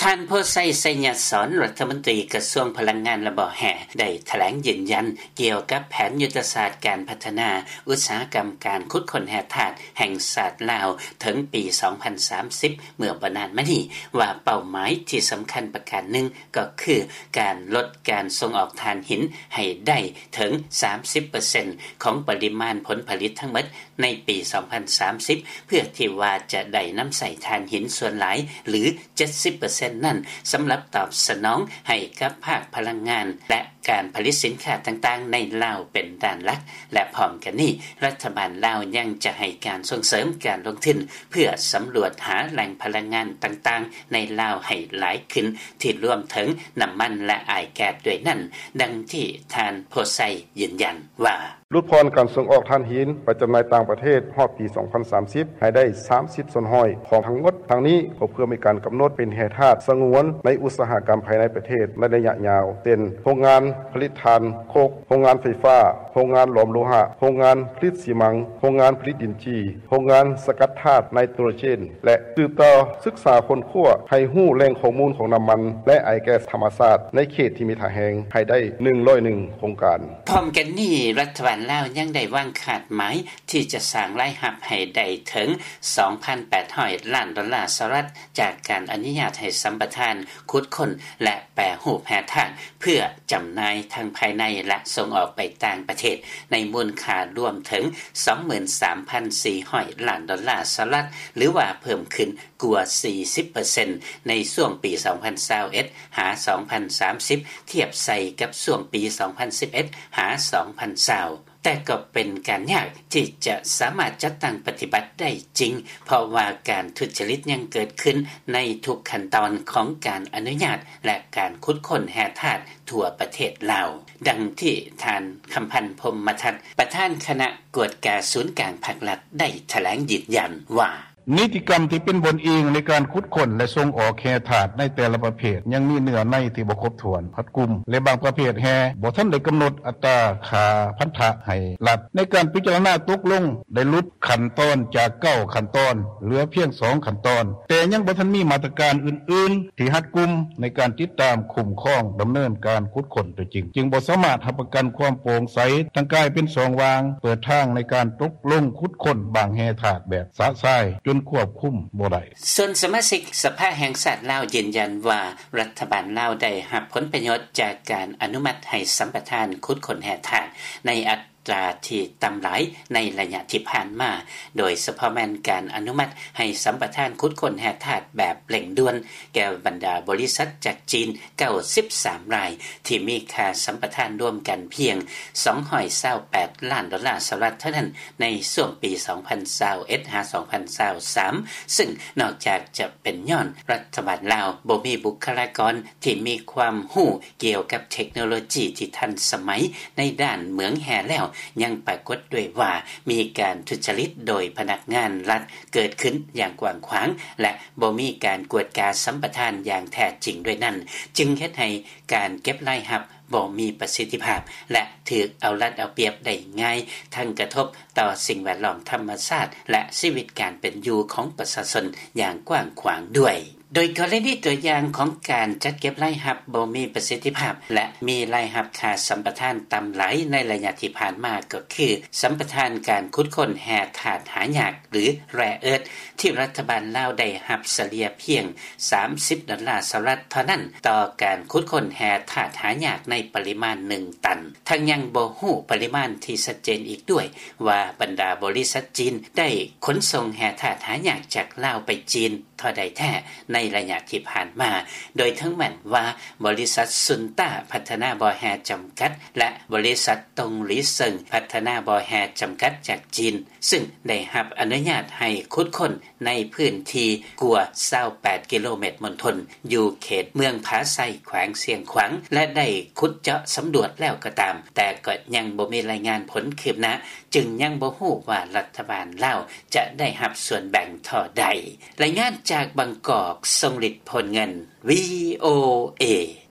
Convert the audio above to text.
ທ່ານ ໂພໄຊ ໄຊຍະສອນ ລັດຖະມົນຕີກະຊວງພະລັງງານ ແລະ ບໍ່ແຮ່ ໄດ້ຖະແຫຼງຢືນຢັນ ກ່ຽວກັບແຜນຍຸດທະສາດການພັດທະນາອຸດສາຫະກຳການຂຸດຄົ້ນແຮ່ທາດແຫ່ງຊາດລາວ ເຖິງປີສອງພັນສາມສິບ ເມື່ອບໍ່ນານມານີ້ ວ່າເປົ້າໝາຍທີ່ສຳຄັນປະການໜຶ່ງ ກໍຄືການລົດການສົ່ງອອກຖ່ານຫີນໃຫ້ໄດ້ເຖິງສາມສິບເປີເຊັນ ຂອງປະລິມານຜົນຜະລິດທັງໝົດ ໃນປີສອງພັນສາມສິບ ເພື່ອທີ່ວ່າຈະໄດ້ນຳໃຊ້ຖ່ານຫີນສ່ວນຫຼາຍ ຫຼື ເຈັດສິບເປີເຊັນນັ້ນ ສຳລັບຕອບສະໜອງໃຫ້ກັບພາກພະລັງງານ ແລະ ການຜະລິດສິນຄ້າຕ່າງໆໃນລາວເປັນດ້ານຫຼັກ ແລະ ພ້ອມກັນນີ້ ລັດຖະບານລາວຍັງຈະໃຫ້ການສົ່ງເສີມການລົງທຶນ ເພື່ອສຳຫຼວດຫາແຫຼ່ງພະລັງງານຕ່າງໆໃນລາວໃຫ້ຫຼາຍຂຶ້ນ ທີ່ລວມເຖິງນ້ຳມັນ ແລະ ອ້າຍແກັສດ້ວຍນັ້ນ, ດັ່ງທີ່ທ່ານ ໂພໄຊ ຢືນຢັນວ່າ: ຫຼຸດຜ່ອນການສົ່ງອອກຖ່ານຫີນໄປຈຳໜ່າຍຕ່າງປະເທດຮອດປີສອງພັນສາມສິບ ໃຫ້ໄດ້ສາມສິບສ່ວນຮ້ອຍຂອງທັງໝົດ. ທັງນີ້ກໍເພື່ອມີການກຳນົດເປັນແຮ່ທາດສະຫງວນໃນອຸດສາຫະກຳພາຍໃນປະເທດໃນໄລຍະຍາວ ເຊັ່ນ ໂຮງງານຜະລິດຖ່ານໂຄກ, ໂຮງງານໄຟຟ້າ, ໂຮງງານຫຼອມໂລຫະ, ໂຮງງານຜະລິດຊີມັງ, ໂຮງງານຜະລິດດິນຈີ, ໂຮງງານສະກັດທາດໄນໂຕຣເຈນ ແລະ ສືບຕໍ່ສຶກສາຄົ້ນຄວ້າໃຫ້ຮູ້ແຫຼ່ງຂໍ້ມູນຂອງນ້ຳມັນ ແລະ ອ້າຍແກັສທຳມະຊາດໃນເຂດທີ່ມີທ່າແຮງໃຫ້ໄດ້ໜຶ່ງຮ້ອຍໜຶ່ງໂຄງການ. ພ້ອມກັນນີ້ ລັດຖະບານລາວຍັງໄດ້ວາງຄາດໝາຍທີ່ຈະສ້າງລາຍຮັບໃຫ້ໄດ້ເຖິງສອງພັນແປດຮ້ອຍລ້ານໂດລາສະຫະລັດ ຈາກການອະນຸຍາດໃຫ້ສຳປະທານຂຸດຄົ້ນ ແລະ ແປຮູບແຮ່ທາດ ເພື່ອຈຳໜ່າຍທັງພາຍໃນ ແລະ ສົ່ງອອກໄປຕ່າງປະເທດ ໃນມູນຄ່າລວມເຖິງສອງໝື່ນສາມພັນສີ່ຮ້ອຍລ້ານໂດລາສະຫະລັດ ຫຼືວ່າເພີ່ມຂຶ້ນກວ່າສີ່ສິບເປີເຊັນ ໃນຊ່ວງປີສອງພັນຊາວເອັດ ຫາ ສອງພັນສາມສິບ ທຽບໃສ່ກັບຊ່ວງປີສອງພັນສິບເອັດ ຫາ ສອງພັນຊາວ. ແຕ່ກໍເປັນການຍາກທີ່ຈະສາມາດຈັດຕັ້ງປະຕິບັດໄດ້ຈິງ ເພາະວ່າການທຸດຈະລິດຍັງເກີດຂຶ້ນໃນທຸກຂັ້ນຕອນຂອງການອະນຸຍາດ ແລະ ການຂຸດຄົ້ນແຮ່ທາດທົ່ວປະເທດລາວ, ດັ່ງທີ່ທ່ານ ຄຳພັນ ພົມມະທັດ ປະທານຄະນະກວດກາສູນກາງພາກລັດ ໄດ້ຖະແຫຼງຢືນຢັນວ່າ: ນິຕິກຳທີ່ເປັນບ່ອນອີງໃນການຂຸດຄົ້ນ ແລະ ສົ່ງອອກແຮ່ທາດໃນແຕ່ລະປະເພດ ຍັງມີເນື້ອໃນທີ່ບໍ່ຄົບຖ້ວນ, ຮັດກຸມ ແລະ ບາງປະເພດແຮ່ບໍ່ທັນໄດ້ກຳນົດອັດຕາຄ່າພັນທະໃຫ້ລັດ. ໃນການພິຈາລະນາຕົກລົງ ໄດ້ຫຼຸດຂັ້ນຕອນຈາກເກົ້າຂັ້ນຕອນ ເຫຼືອພຽງສອງຂັ້ນຕອນ, ແຕ່ຍັງບໍ່ທັນມີມາດຕະການອື່ນໆທີ່ຮັດກຸມໃນການຕິດຕາມ, ຄຸ້ມຄອງ, ດຳເນີນການຂຸດຄົ້ນຕົວຈິງ, ຈຶ່ງບໍ່ສາມາດຮັບປະກັນຄວາມໂປ່ງໃສ, ທັງກາຍເປັນຊ່ອງວ່າງເປີດທາງໃນການຕົກລົງຂຸດຄົ້ນບາງແຮ່ທາດແບບຊະຊາຍຈົນຄວບຄຸມບໍ່ໄດ້. ສ່ວນສະມາຊິກສະພາແຫ່ງຊາດລາວຢືນຢັນວ່າ ລັດຖະບານລາວໄດ້ຮັບຜົນປະໂຫຍດຈາກການອະນຸມັດໃຫ້ສຳປະທານຂຸດຄົ້ນແຮ່ທາດໃນອັດຕາທີ່ຕ່ຳຫຼາຍໃນໄລຍະທີ່ຜ່ານມາ, ໂດຍສະເພາະແມ່ນການອະນຸມັດໃຫ້ສຳປະທານຂຸດຄົ້ນແຮ່ທາດແບບເລັ່ງດ່ວນແກ່ບັນດາບໍລິສັດຈາກຈີນເກົ້າສິບສາມລາຍ ທີ່ມີຄ່າສຳປະທານລວມກັນພຽງສອງຮ້ອຍຊາວແປດລ້ານໂດລາສະຫະລັດເທົ່ານັ້ນ ໃນຊ່ວງປີສອງພັນຊາວເອັດ ຫາ ສອງພັນຊາວສາມ ຊຶ່ງນອກຈາກຈະເປັນຍ້ອນລັດຖະບານລາວບໍ່ມີບຸກຄະລາກອນທີ່ມີຄວາມຮູ້ກ່ຽວກັບເທັກໂນໂລຈີທີ່ທັນສະໄໝໃນດ້ານເໝືອງແຮ່ແລ້ວ, ຍັງປາກົດດ້ວຍວ່າມີການທຸດຈະລິດໂດຍພະນັກງານລັດເກີດຂຶ້ນຢ່າງກວ້າງຂວາງ ແລະ ບໍ່ມີການກວດກາສຳປະທານຢ່າງແທ້ຈິງດ້ວຍນັ້ນ, ຈຶ່ງເຮັດໃຫ້ການເກັບລາຍຮັບ ບໍ່ມີປະສິດທິພາບ ແລະ ຖືກເອົາລັດເອົາປຽບໄດ້ງ່າຍ, ທັງກະທົບຕໍ່ສິ່ງແວດລ້ອມທຳມະຊາດ ແລະ ຊີວິດການເປັນຢູ່ຂອງປະຊາຊົນຢ່າງກວ້າງຂວາງດ້ວຍ. ໂດຍກໍລະນີຕົວຢ່າງຂອງການຈັດເກັບລາຍຮັບບໍ່ມີປະສິດທິພາບ ແລະ ມີລາຍຮັບຄ່າສຳປະທານຕ່ຳຫຼາຍໃນໄລຍະທີ່ຜ່ານມາ ກໍຄືສຳປະທານການຂຸດຄົ້ນແຮ່ທາດຫາຍາກ ຫຼື rare earth ທີ່ລັດຖະບານລາວໄດ້ຮັບສະເລ່ຍພຽງສາມສິບດອນລາສະຫະລັດເທົ່ານັ້ນ ຕໍ່ການຂຸດຄົ້ນແຮ່ທາດຫາຍາກໃນປະລິມານໜຶ່ງຕັນ. ທັງຍັງບໍ່ຮູ້ປະລິມານທີ່ຊັດເຈນອີກດ້ວຍວ່າ ບັນດາບໍລິສັດຈີນໄດ້ຂົນສົ່ງແຮ່ທາດຫາຍາກຈາກລາວໄປຈີນເທົ່າໃດແທ້ໃນໄລຍະທີ່ຜ່ານມາ, ໂດຍເຖິງແມ່ນວ່າບໍລິສັດຊຸນຕ້າພັດທະນາບໍ່ແຮ່ຈຳກັດ ແລະ ບໍລິສັດຕົງຫຼີເຊິ່ງພັດທະນາບໍ່ແຮ່ຈຳກັດຈາກຈີນ ຊຶ່ງໄດ້ຮັບອະນຸຍາດໃຫ້ຂຸດຄົ້ນ ໃນພື້ນທີ່ກວ່າຊາວແປດກິໂລແມັດມົນທົນ ຢູ່ເຂດເມືອງຜາໄຊ ແຂວງຊຽງຂວາງ ແລະ ໄດ້ຂຸດເຈາະສຳຫຼວດແລ້ວກໍຕາມ, ແຕ່ກໍຍັງບໍ່ມີລາຍງານຜົນຄືບໜ້າ, ຈຶ່ງຍັງບໍ່ຮູ້ວ່າລັດຖະບານລາວຈະໄດ້ຮັບສ່ວນແບ່ງທໍ່ໃດ. ລາຍງານຈາກບາງກອກ, ຊົງລິດ ໂພນເງິນ, ວີໂອເອ.